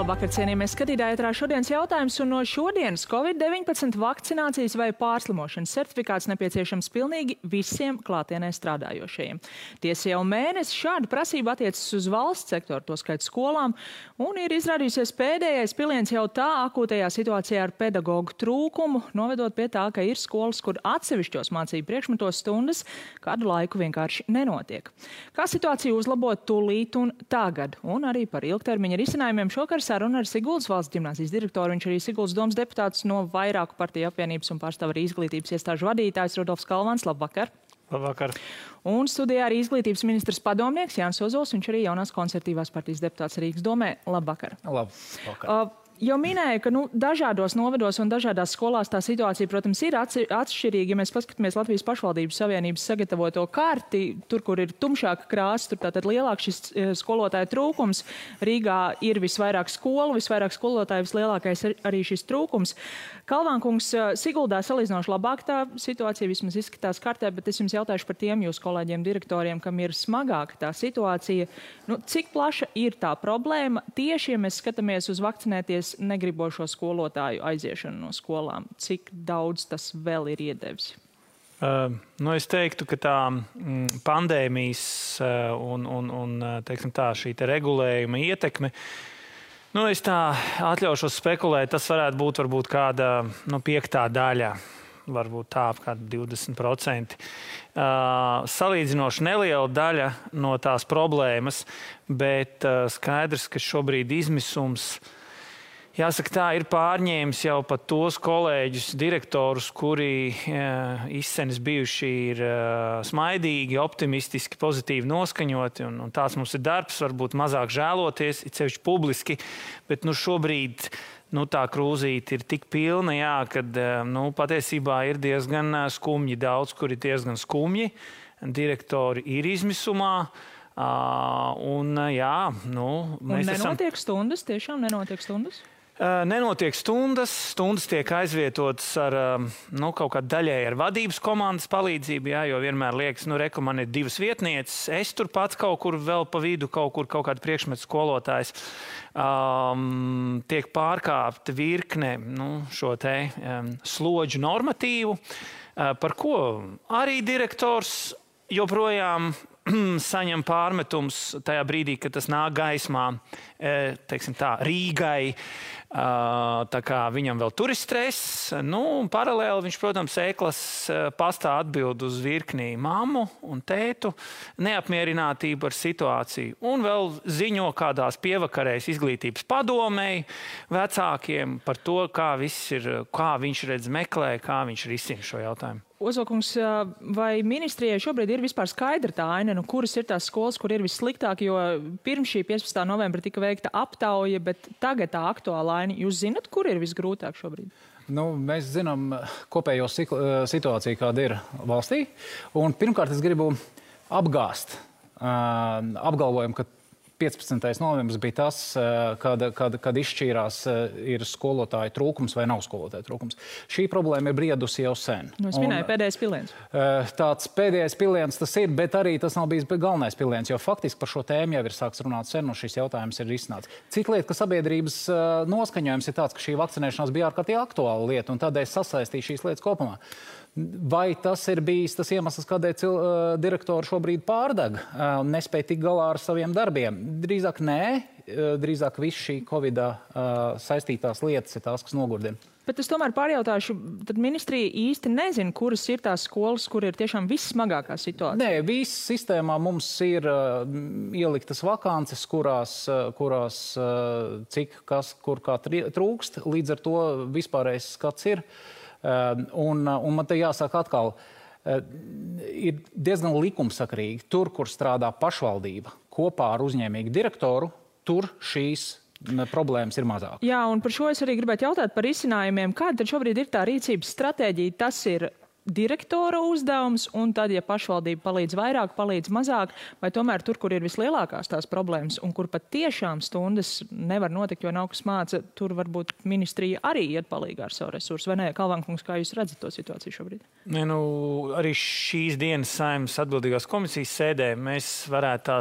Labvakar, cienījamie skatītāji, ētrā šodienas jautājums, un no šodienas Covid-19 vakcinācijas vai pārslimošanas certifikāts nepieciešams pilnīgi visiem klātienē strādājošajiem. Tiesa jau mēnesi šāda prasība attiecas uz valsts sektoru, to skait skolām, un ir izrādījusies pēdējais piliens jau tā akūtajā situācijā ar pedagogu trūkumu, novedot pie tā, ka ir skolas, kur atsevišķos mācību priekšmetos stundas kādu laiku vienkārši nenotiek. Kā situāciju uzlabot tūlīt un tagad, un arī par ilgtermiņa risinājumiem šokar saruna ar Siguldas valsts ģimnāzijas direktoru. Viņš arī Siguldas domas deputāts no vairāku partiju apvienības un pārstāv arī izglītības iestāžu vadītājs Rudolfs Kalvans. Labvakar! Labvakar! Un studijā arī izglītības ministrs padomnieks Jānis Ozols, viņš arī jaunās konservatīvās partijas deputāts Rīgas domē. Labvakar! Labvakar! Jau minēju, ka dažādos novados un dažādās skolās tā situācija, protams, ir atšķirīga. Ja mēs paskatāmies Latvijas pašvaldības savienības sagatavoto karti, tur, kur ir tumšāka krāsa, tur tātad lielāks šis skolotāju trūkums. Rīgā ir visvairāk skolu, visvairāk skolotāju, vislielākais arī šis trūkums. Kalvānkungs, Siguldā salīdzinoši labāk tā situācija vismaz izskatās kartē, bet es jums jautāšu par tiem jūsu kolēģiem direktoriem, kam ir smagāka tā situācija. Cik plaša ir tā problēma tieši, ja mēs skatāmies uz vakcinēties negribošo skolotāju aiziešanu no skolām? Cik daudz tas vēl ir iedevis? Es teiktu, ka tā pandēmijas un teiksim tā, šī te regulējuma ietekme, es tā atļaušos spekulēt, tas varētu būt varbūt kāda piektā daļa, varbūt tā apkārt 20%. Salīdzinoši neliela daļa no tās problēmas, bet skaidrs, ka šobrīd izmisums, jāsaka tā, ir pārņēmis jau pat tos kolēģus, direktorus, kuri izsenis bijuši ir smaidīgi, optimistiski, pozitīvi noskaņoti, un tāds mums ir darbs, varbūt mazāk žēloties, it sevišķi publiski, bet šobrīd tā krūzīte ir tik pilna, jā, kad patiesībā ir diezgan skumji, daudz, kur ir diezgan skumji, direktori ir izmisumā, un jā, mēs nenotiek stundas, tiešām nenotiek stundas? Nenotiek stundas tiek aizvietotas ar kaut kādu daļēji ar vadības komandas palīdzību, jā, jo vienmēr liekas, reku, man ir divas vietnieces, es tur pats kaut kur vēl pa vidu, kaut kādu priekšmetu skolotājs. Tiek pārkāpta virkne šo te slodžu normatīvu, par ko arī direktors joprojām saņem pārmetums tajā brīdī, kad tas nāk gaismā, teiksim tā, Rīgai, tā kā viņam vēl tur ir stress. Paralēli viņš, protams, ēklas pastā atbild uz virknī mammu un tētu neapmierinātību ar situāciju. Un vēl ziņo kādās pievakarēs izglītības padomei vecākiem par to, kā viņš redz meklē, kā viņš risina šo jautājumu. Ozolkungs, vai ministrijai šobrīd ir vispār skaidra tā aina, kuras ir tās skolas, kur ir vissliktāk, jo pirms šī 15. novembra tika veikta aptauja, bet tagad tā aktuāla aina, jūs zinat, kur ir visgrūtāk šobrīd? Mēs zinām kopējo situāciju, kāda ir valstī, un pirmkārt es gribu apgāst apgalvojumu, ka 15. novembris bija tas, kad izšķīrās ir skolotāju trūkums vai nav skolotāju trūkums. Šī problēma ir briedusi jau sen. Es minēju pēdējais piliens. Tāds pēdējais piliens tas ir, bet arī tas nav bijis galvenais piliens, jo faktiski par šo tēmu jau ir sāks runāt sen, un šis jautājums ir risināts. Cita lieta, ka sabiedrības noskaņojums ir tāds, ka šī vakcinēšanās bija ārkārtīgi aktuāla lieta, un tādēļ sasaistīja šīs lietas kopumā. Vai tas ir bijis tas iemesls, kādēļ direktori šobrīd pārdeg un nespēja tikt galā ar saviem darbiem? Drīzāk nē, drīzāk viss šī Covidā saistītās lietas ir tās, kas nogurdina. Bet es tomēr pārjautāšu, tad ministrija īsti nezina, kuras ir tās skolas, kur ir tiešām vissmagākā situācija? Nē, viss sistēmā mums ir ieliktas vakances, kurās cik, kas, kur kā trūkst, līdz ar to vispārējais skats ir. Un man te jāsaka atkal, ir diezgan likumsakarīgi. Tur, kur strādā pašvaldība kopā ar uzņēmīgu direktoru, tur šīs problēmas ir mazāk. Jā, un par šo es arī gribētu jautāt par risinājumiem. Kāda tad šobrīd ir tā rīcības stratēģija? Tas ir direktora uzdevums, un tad, ja pašvaldība palīdz vairāk, palīdz mazāk, vai tomēr tur, kur ir vislielākās tās problēmas, un kur pat tiešām stundas nevar notikt, jo nav kas māca, tur varbūt ministrija arī iet palīgā ar savu resursu, vai ne? Kalvankungs, kā jūs redzat to situāciju šobrīd? Nu, arī šīs dienas Saeimas atbildīgās komisijas sēdē mēs varētu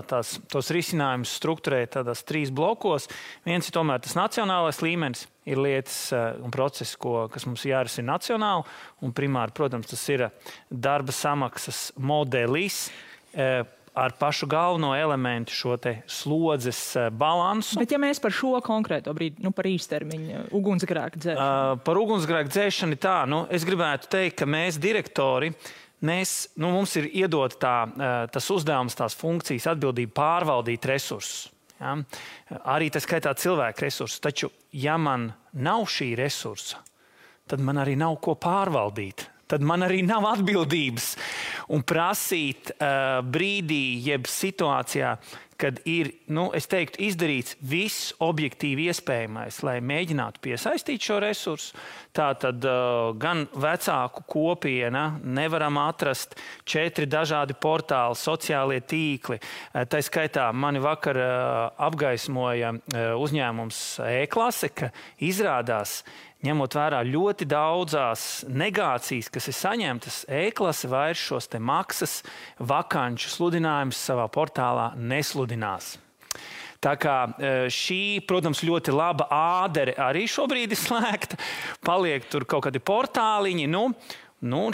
tos risinājumus strukturēt tādās 3 blokos. Viens ir tomēr tas nacionālais līmenis. Ir lietas un procesi, kas mums jārisina nacionāli, un primāri, protams, tas ir darba samaksas modelis ar pašu galveno elementu šo te slodzes balansu. Bet ja mēs par šo konkrēto brīdi, par īstermiņa ugunsgrēku dzēšanu? Par ugunsgrēku dzēšanu tā, es gribētu teikt, ka mēs direktori, mums ir iedot tas uzdevums, tās funkcijas, atbildība pārvaldīt resursus. Ja? Arī tas skaitā cilvēku resursus, taču, ja man nav šī resursa, tad man arī nav ko pārvaldīt. Tad man arī nav atbildības un prasīt brīdī, jeb situācijā, kad ir, es teiktu, izdarīts viss objektīvi iespējamais, lai mēģinātu piesaistīt šo resursu. Tātad gan vecāku kopiena, nevaram atrast 4 dažādi portāli, sociālie tīkli. Tā skaitā mani vakar apgaismoja uzņēmums E-klase, ka izrādās, ņemot vērā ļoti daudzās negācijas, kas ir saņemtas, E-klase vairs šos te maksas vakanču sludinājumus savā portālā nesludinās. Tā kā šī, protams, ļoti laba ādere arī šobrīd ir slēgta, paliek tur kaut kādi portāliņi,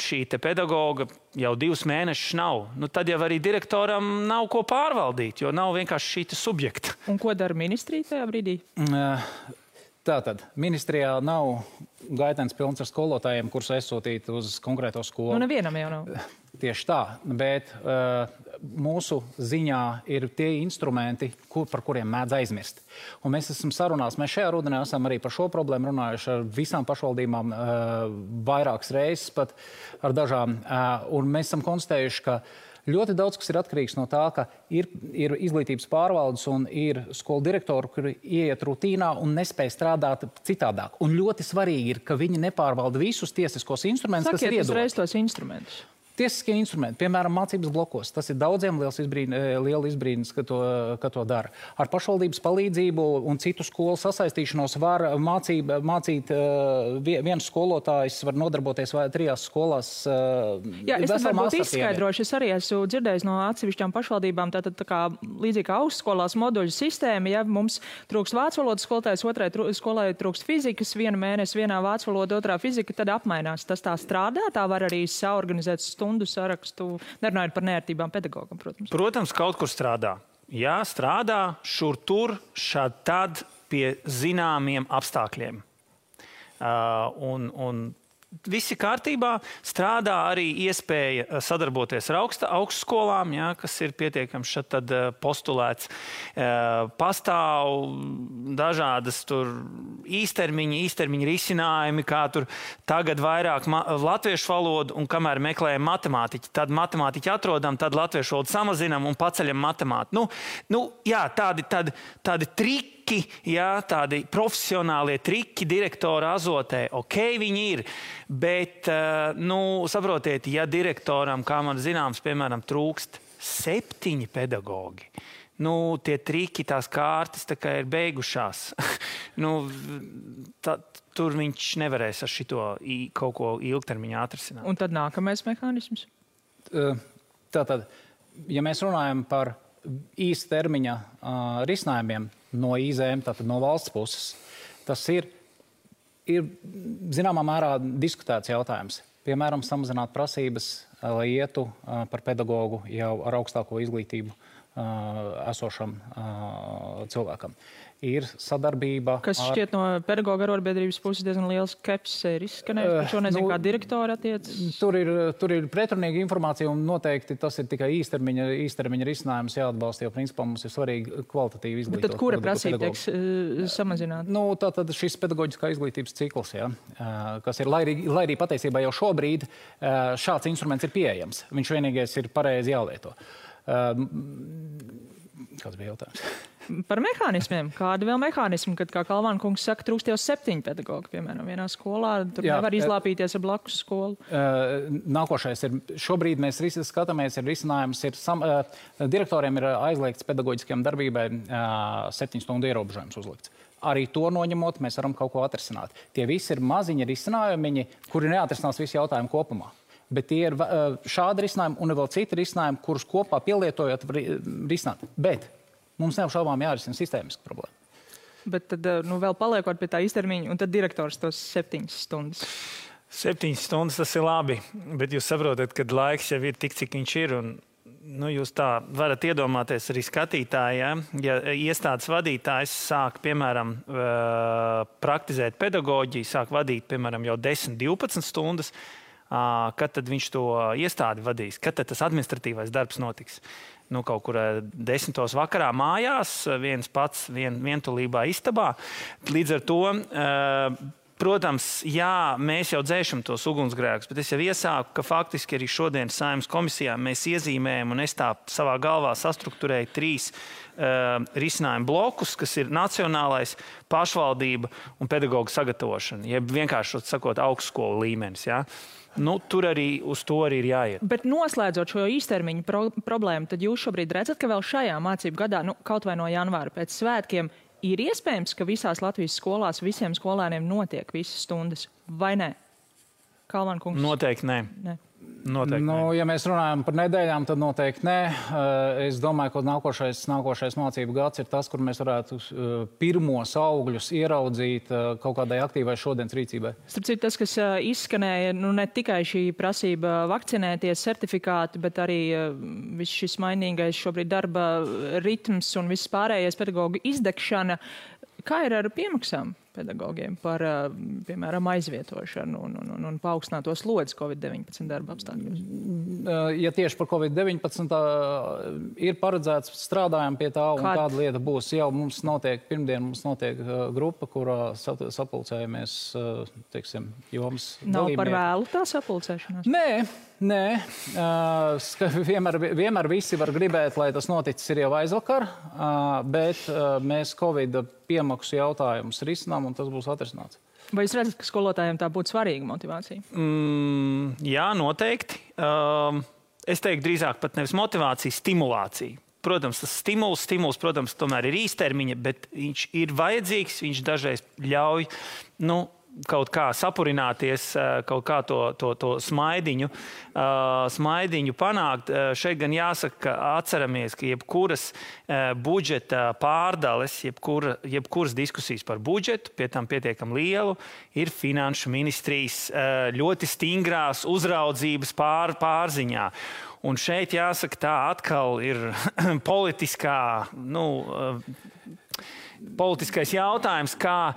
šī te pedagoga jau 2 mēnešus nav. Tad jau arī direktoram nav ko pārvaldīt, jo nav vienkārši šī te subjekta. Un ko dara ministrija tajā brīdī? Tātad, ministrijā nav gaitenis pilns ar skolotājiem, kurus aizsūtīt uz konkrēto skolu. Nevienam jau nav. Tieši tā, bet mūsu ziņā ir tie instrumenti, par kuriem mēdz aizmirst. Un mēs esam sarunās, mēs šajā rudenī esam arī par šo problēmu runājuši ar visām pašvaldībām vairākas reizes, pat ar dažām. Un mēs esam konstatējuši, ka ļoti daudz, kas ir atkarīgs no tā, ka ir izglītības pārvaldes un ir skolu direktori, kuri ieiet rutīnā un nespēj strādāt citādāk. Un ļoti svarīgi ir, ka viņi nepārvalda visus tiesiskos instrumentus, kas ir iedoti. Sakiet uzreiz tos instrumentus. Tiesiskie instrumenti, piemēram, mācības blokos. Tas ir daudziem liela izbrīnis, ka to dara. Ar pašvaldības palīdzību un citu skolu sasaistīšanos var mācīt viens skolotājs, var nodarboties 3 skolās. Jā, es varbūt izskaidrošu. Es arī esmu dzirdējis no atsevišķām pašvaldībām, tātad tā kā līdzīgi kā augstskolās moduļu sistēma, ja mums trūkst vācu valodas skolotājs, otrai skolai trūkst fizikas, 1 mēnesi vienā vācu valoda, otrā fizika, tad apmainās. Tas tā strādā, tā var arī saorganizēt stundu sarakstu, nerunājot par neērtībām pedagogam, protams. Protams, kaut kur strādā. Jā, strādā šur tur, šad tad pie zināmiem apstākļiem. Un visi kārtībā, strādā arī iespēja sadarboties ar augstskolām, kas ir pietiekams šad tad postulēts. Pastāv dažādas tur īstermiņa risinājumi, kā tur tagad vairāk latviešu valodu, un kamēr meklējam matemātiķi, tad matemātiķi atrodam, tad latviešu valodu samazinam un paceļam matemātiku. Jā, tādi triki, tādi profesionālie triki direktora azotē, viņi ir, bet, saprotiet, ja direktoram, kā man zināms, piemēram, trūkst 7 pedagogi, tie triki, tās kārtas tā kā ir beigušās. Tur viņš nevarēs ar šito kaut ko ilgtermiņā atrisināt. Un tad nākamais mehānisms? Tātad, ja mēs runājam par īstermiņa risinājumiem no IZM, tātad no valsts puses, tas ir zināmā mērā diskutēts jautājums. Piemēram, samazināt prasības, lai ietu par pedagogu jau ar augstāko izglītību esošam cilvēkam. Ir sadarbība kas šķiet no pedagoga arotbiedrības puses diezgan liels skepsis ir izskanējis, par šo nezinu, kā direktori attiecas. Tur ir pretrunīga informācija un noteikti tas ir tikai īstermiņa risinājums jāatbalsta, jo principā mums ir svarīgi kvalitatīvi izglītot. Bet tad kura prasība tieks samazināt? Tātad šis pedagoģiskā izglītības cikls, kas ir, lai arī patiesībā jau šobrīd šāds instruments ir pieejams. Viņš vienīgais ir pareizi jālieto. Kāds bija jautājums? Par mehānismiem. Kādi vēl mehānismi, kad, kā Kalvāna kungs saka, trūkst jau 7 pedagogi, piemēram, vienā skolā, tur nevar izlāpīties ar blakus skolu? Nākošais ir, šobrīd mēs skatāmies, risinājums ir, direktoriem ir aizliegts pedagoģiskajām darbībai 7 stundu ierobežojums uzlikts. Arī to noņemot, mēs varam kaut ko atrisināt. Tie visi ir maziņi risinājumi, kuri neatrisinās visu jautājumu kopumā. Bet tie ir šādi risinājumi un vēl citi risinājumi, kurus kopā pielietojot risināt. Bet mums neapšaubām jārisina sistēmiska problēma. Bet tad, vēl paliekot pie tā īstermiņa, un tad direktors tos 7 stundas. 7 stundas tas ir labi, bet jūs saprotat, ka laiks jau ir tik, cik viņš ir. Un, jūs tā varat iedomāties arī skatītāji, ja iestādes vadītājs sāk, piemēram, praktizēt pedagoģiju, sāk vadīt, piemēram, jau 10-12 stundas, kad tad viņš to iestādi vadīs, kad tad tas administratīvais darbs notiks. Kaut kur 10. vakarā mājās, viens pats vientulībā istabā. Līdz ar to, protams, jā, mēs jau dzēšam tos ugunsgrēkus, bet es jau iesāku, ka faktiski arī šodien Saeimas komisijā mēs iezīmējam, un es tā savā galvā sastrukturēju 3 risinājumu blokus, kas ir nacionālais, pašvaldība un pedagoģu sagatavošana, jeb vienkārši sakot augstskolu līmenis, jā. Tur arī uz to arī ir jāiet. Bet noslēdzot šo īstermiņu problēmu, tad jūs šobrīd redzat, ka vēl šajā mācību gadā, kaut vai no janvāra pēc svētkiem, ir iespējams, ka visās Latvijas skolās visiem skolēniem notiek visas stundas, vai ne? Kalvāna kungs? Noteikti nē. Noteikti nē. Ja mēs runājam par nedēļām, tad noteikti nē. Es domāju, ka nākošais mācību gads ir tas, kur mēs varētu pirmos augļus ieraudzīt kaut kādai aktīvai šodienas rīcībai. Starp citu, tas, kas izskanēja, ne tikai šī prasība vakcinēties, certifikāti, bet arī viss šis mainīgais šobrīd darba ritms un viss pārējais pedagoģu izdegšana. Kā ir ar piemaksām pedagogiem par, piemēram, aizvietošanu un paaugstināto slodzi COVID-19 darba apstākļos? Ja tieši par COVID-19 ir paredzēts, strādājam pie tā, un kāda lieta būs. Jau mums notiek, pirmdien mums notiek grupa, kurā sapulcējamies, teiksim, jomas dalībnieki. Nav par vēlu tā sapulcēšanās? Nē. Vienmēr visi var gribēt, lai tas noticis ir jau aizvakar, bet mēs Covid piemaksu jautājumus risinām, un tas būs atrisināts. Vai jūs redzat, ka skolotājiem tā būtu svarīga motivācija? Jā, noteikti. Es teiktu drīzāk pat nevis motivācija, stimulācija. Protams, tas stimuls, protams, tomēr ir īstermiņa, bet viņš ir vajadzīgs, viņš dažreiz ļauj, kaut kā sapurināties, kaut kā to smaidiņu panākt. Šeit gan jāsaka, ka atceramies, ka jebkuras budžeta pārdales, jebkuras diskusijas par budžetu, pie tam pietiekami lielu, ir finanšu ministrijas ļoti stingrās uzraudzības pārziņā. Un šeit jāsaka, tā atkal ir politiskais jautājums, kā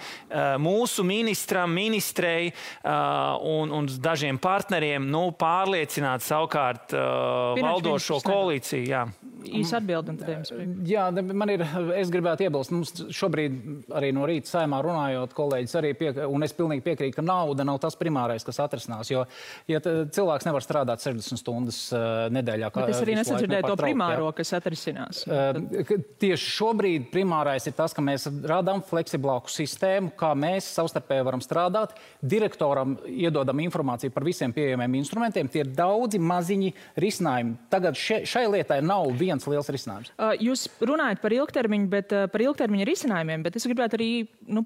mūsu ministrei un dažiem partneriem pārliecināt savukārt valdošo koalīciju. Jā. Īsa atbildi un tad jums priekš. Jā, es gribētu iebilst. Mums šobrīd arī no rīta Saeimā runājot, kolēģis arī un es pilnīgi piekrītu, ka nauda nav tas primārais, kas atrisinās, jo ja cilvēks nevar strādāt 60 stundas nedēļā. Bet es arī nesadzirdēju to primāro, kas atrisinās. Tieši šobrīd primārais ir tas, ka mēs radām fleksiblāku sistēmu, kā mēs savstarpēji varam strādāt. Direktoram iedodam informāciju par visiem pieejamiem instrumentiem. Tie ir daudzi maziņi risinājumi. Tagad šai lietai nav viens liels risinājums. Jūs runājat par ilgtermiņu, bet par ilgtermiņa risinājumiem, bet es gribētu arī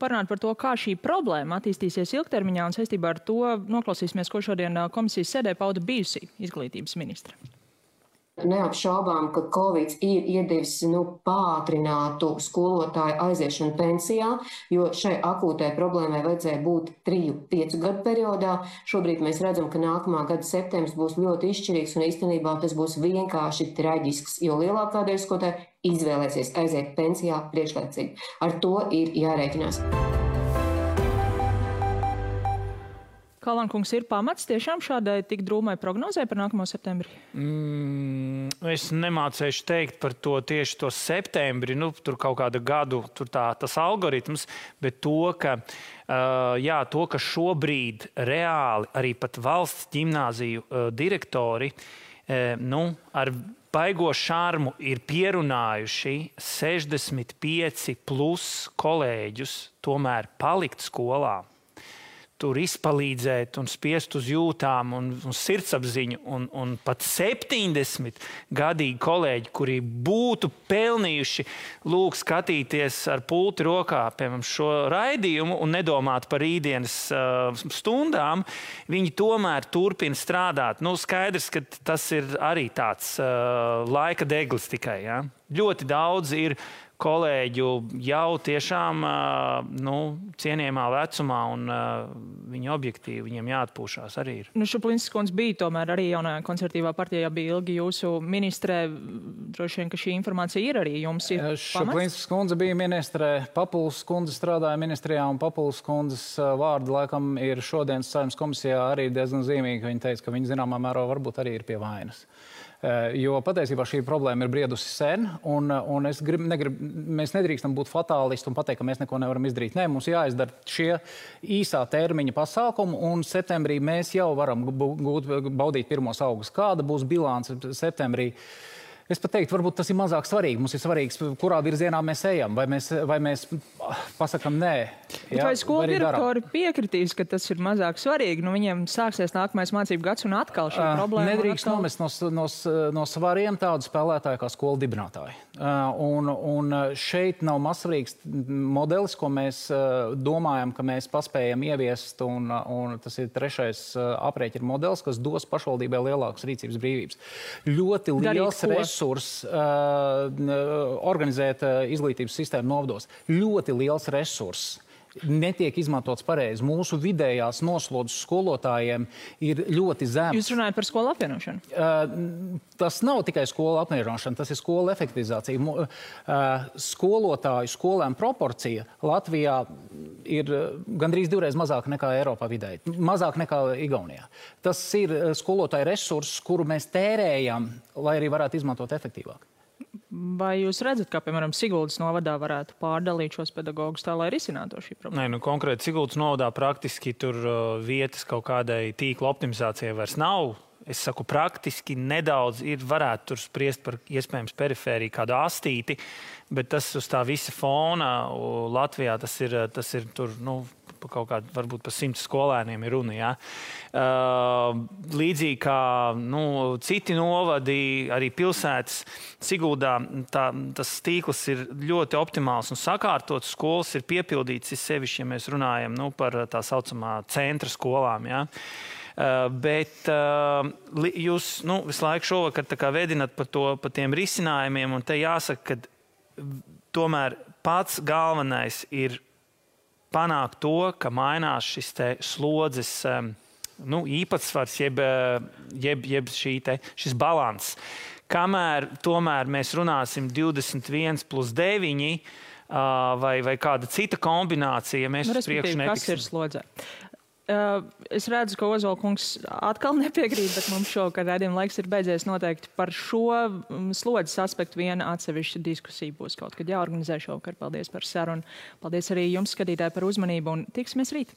parunāt par to, kā šī problēma attīstīsies ilgtermiņā, un saistībā ar to noklausīsimies, ko šodien komisijas sēdē pauda bijusī izglītības ministra. Neapšaubām, ka Covid ir iedevis pātrinātu skolotāju aiziešanu pensijā, jo šai akūtai problēmai vajadzēja būt 3-5 gadu periodā. Šobrīd mēs redzam, ka nākamā gada septembris būs ļoti izšķirīgs un īstenībā tas būs vienkārši traģisks, jo lielākā daļa skolotāju izvēlēsies aiziet pensijā priekšlaicīgi. Ar to ir jārēķinās. Kalvāna kungs, ir pamats tiešām šādai tik drūmai prognozē par nākamo septembri? Es nemācēšu teikt par to tieši to septembri, tur kaut kāda gadu, tur tas algoritms, bet to, ka šobrīd reāli arī pat valsts ģimnāziju direktori ar baigo šarmu ir pierunājuši 65 plus kolēģus tomēr palikt skolā, tur izpalīdzēt un spiest uz jūtām un sirdsapziņu. Un pat 70 gadīgi kolēģi, kuri būtu pelnījuši skatīties ar pulti rokā, piemēram, šo raidījumu un nedomāt par rītdienas stundām, viņi tomēr turpina strādāt. Skaidrs, ka tas ir arī tāds laika deglis tikai. Ja? Ļoti daudz ir kolēģu jau tiešām cienījamā vecumā, un viņi objektīvi, viņiem jāatpūšās arī ir. Šuplinskas kundze bija tomēr arī jaunajā konservatīvā partijā, bija ilgi jūsu ministrē. Droši vien, ka šī informācija ir arī jums ir pamats? Šuplinskas kundze bija ministrē, Papuls kundze strādāja ministrijā, un Papuls kundzes vārdi laikam ir šodienas Saeimas komisijā arī diezgan zīmīgi. Viņa teica, ka viņa zināmā mērā varbūt arī ir pie vainas. Jo patiesībā šī problēma ir briedusi sen, un mēs nedrīkstam būt fatālisti un pateikt, ka mēs neko nevaram izdarīt. Nē, mums jāizdara šie īsā termiņa pasākumi, un septembrī mēs jau varam baudīt pirmos augus. Kāda būs bilance septembrī? Es pat teiktu, varbūt tas ir mazāk svarīgi. Mums ir svarīgs, kurā virzienā mēs ejam, vai mēs pasakam nē. Ja? Vai skolu direktori piekritīs, ka tas ir mazāk svarīgi? Viņiem sāksies nākamais mācību gads un atkal šī problēma. Nedrīkst nomest no svariem tādu spēlētāju kā skolu dibinātāji. Un šeit nav mazsvarīgs modelis, ko mēs domājam, ka mēs paspējam ieviest, un tas ir trešais aprēķina modelis, kas dos pašvaldībai lielākas rīcības brīvības. Ļoti liels resurs organizēt izglītības sistēmu novados. Ļoti liels resurs netiek izmantots pareizi. Mūsu vidējās noslodzes skolotājiem ir ļoti zemes. Jūs runājat par skolu apvienošanu? Tas nav tikai skolu apvienošana, tas ir skolu efektivizācija. Skolotāju skolēm proporcija Latvijā ir gandrīz 2 mazāk nekā Eiropā vidēji, mazāk nekā Igaunijā. Tas ir skolotāju resurss, kuru mēs tērējam, lai arī varētu izmantot efektīvāk. Vai jūs redzat, kā, piemēram, Siguldas novadā varētu pārdalīt šos pedagogus tā, lai risinātu šī problēma? Nē, konkrēti Siguldas novadā praktiski tur vietas kaut kādai tīkla optimizācijai vairs nav. Es saku, praktiski nedaudz varētu tur spriest par iespējams perifēriju kādu astīti, bet tas uz tā visa fona Latvijā tas ir tur, kaut kādā, varbūt par 100 skolēniem ir runa, jā. Līdzīgi kā citi novadi, arī pilsētas Siguldā, tas tīkls ir ļoti optimāls un sakārtots. Skolas ir piepildīts, sevišķi, ja mēs runājam par tā saucamā centra skolām, jā. Bet jūs visu laiku šovakar tā kā vedinat par tiem risinājumiem, un te jāsaka, ka tomēr pats galvenais ir panākt to, ka mainās šis te slodzes īpatsvars, jeb šis balans. Kamēr tomēr mēs runāsim 21+9 vai kāda cita kombinācija, mēs uz priekšu netiksim. Kas ir slodzē? Es redzu, ka Ozola kungs atkal nepiekrīt, bet mums šovakar redzījuma laiks ir beidzies. Noteikti par šo slodzes aspektu viena atsevišķa diskusija būs kaut kad jāorganizē šovakar. Paldies par sarunu. Paldies arī jums, skatītāji, par uzmanību, un tiksimies rīt.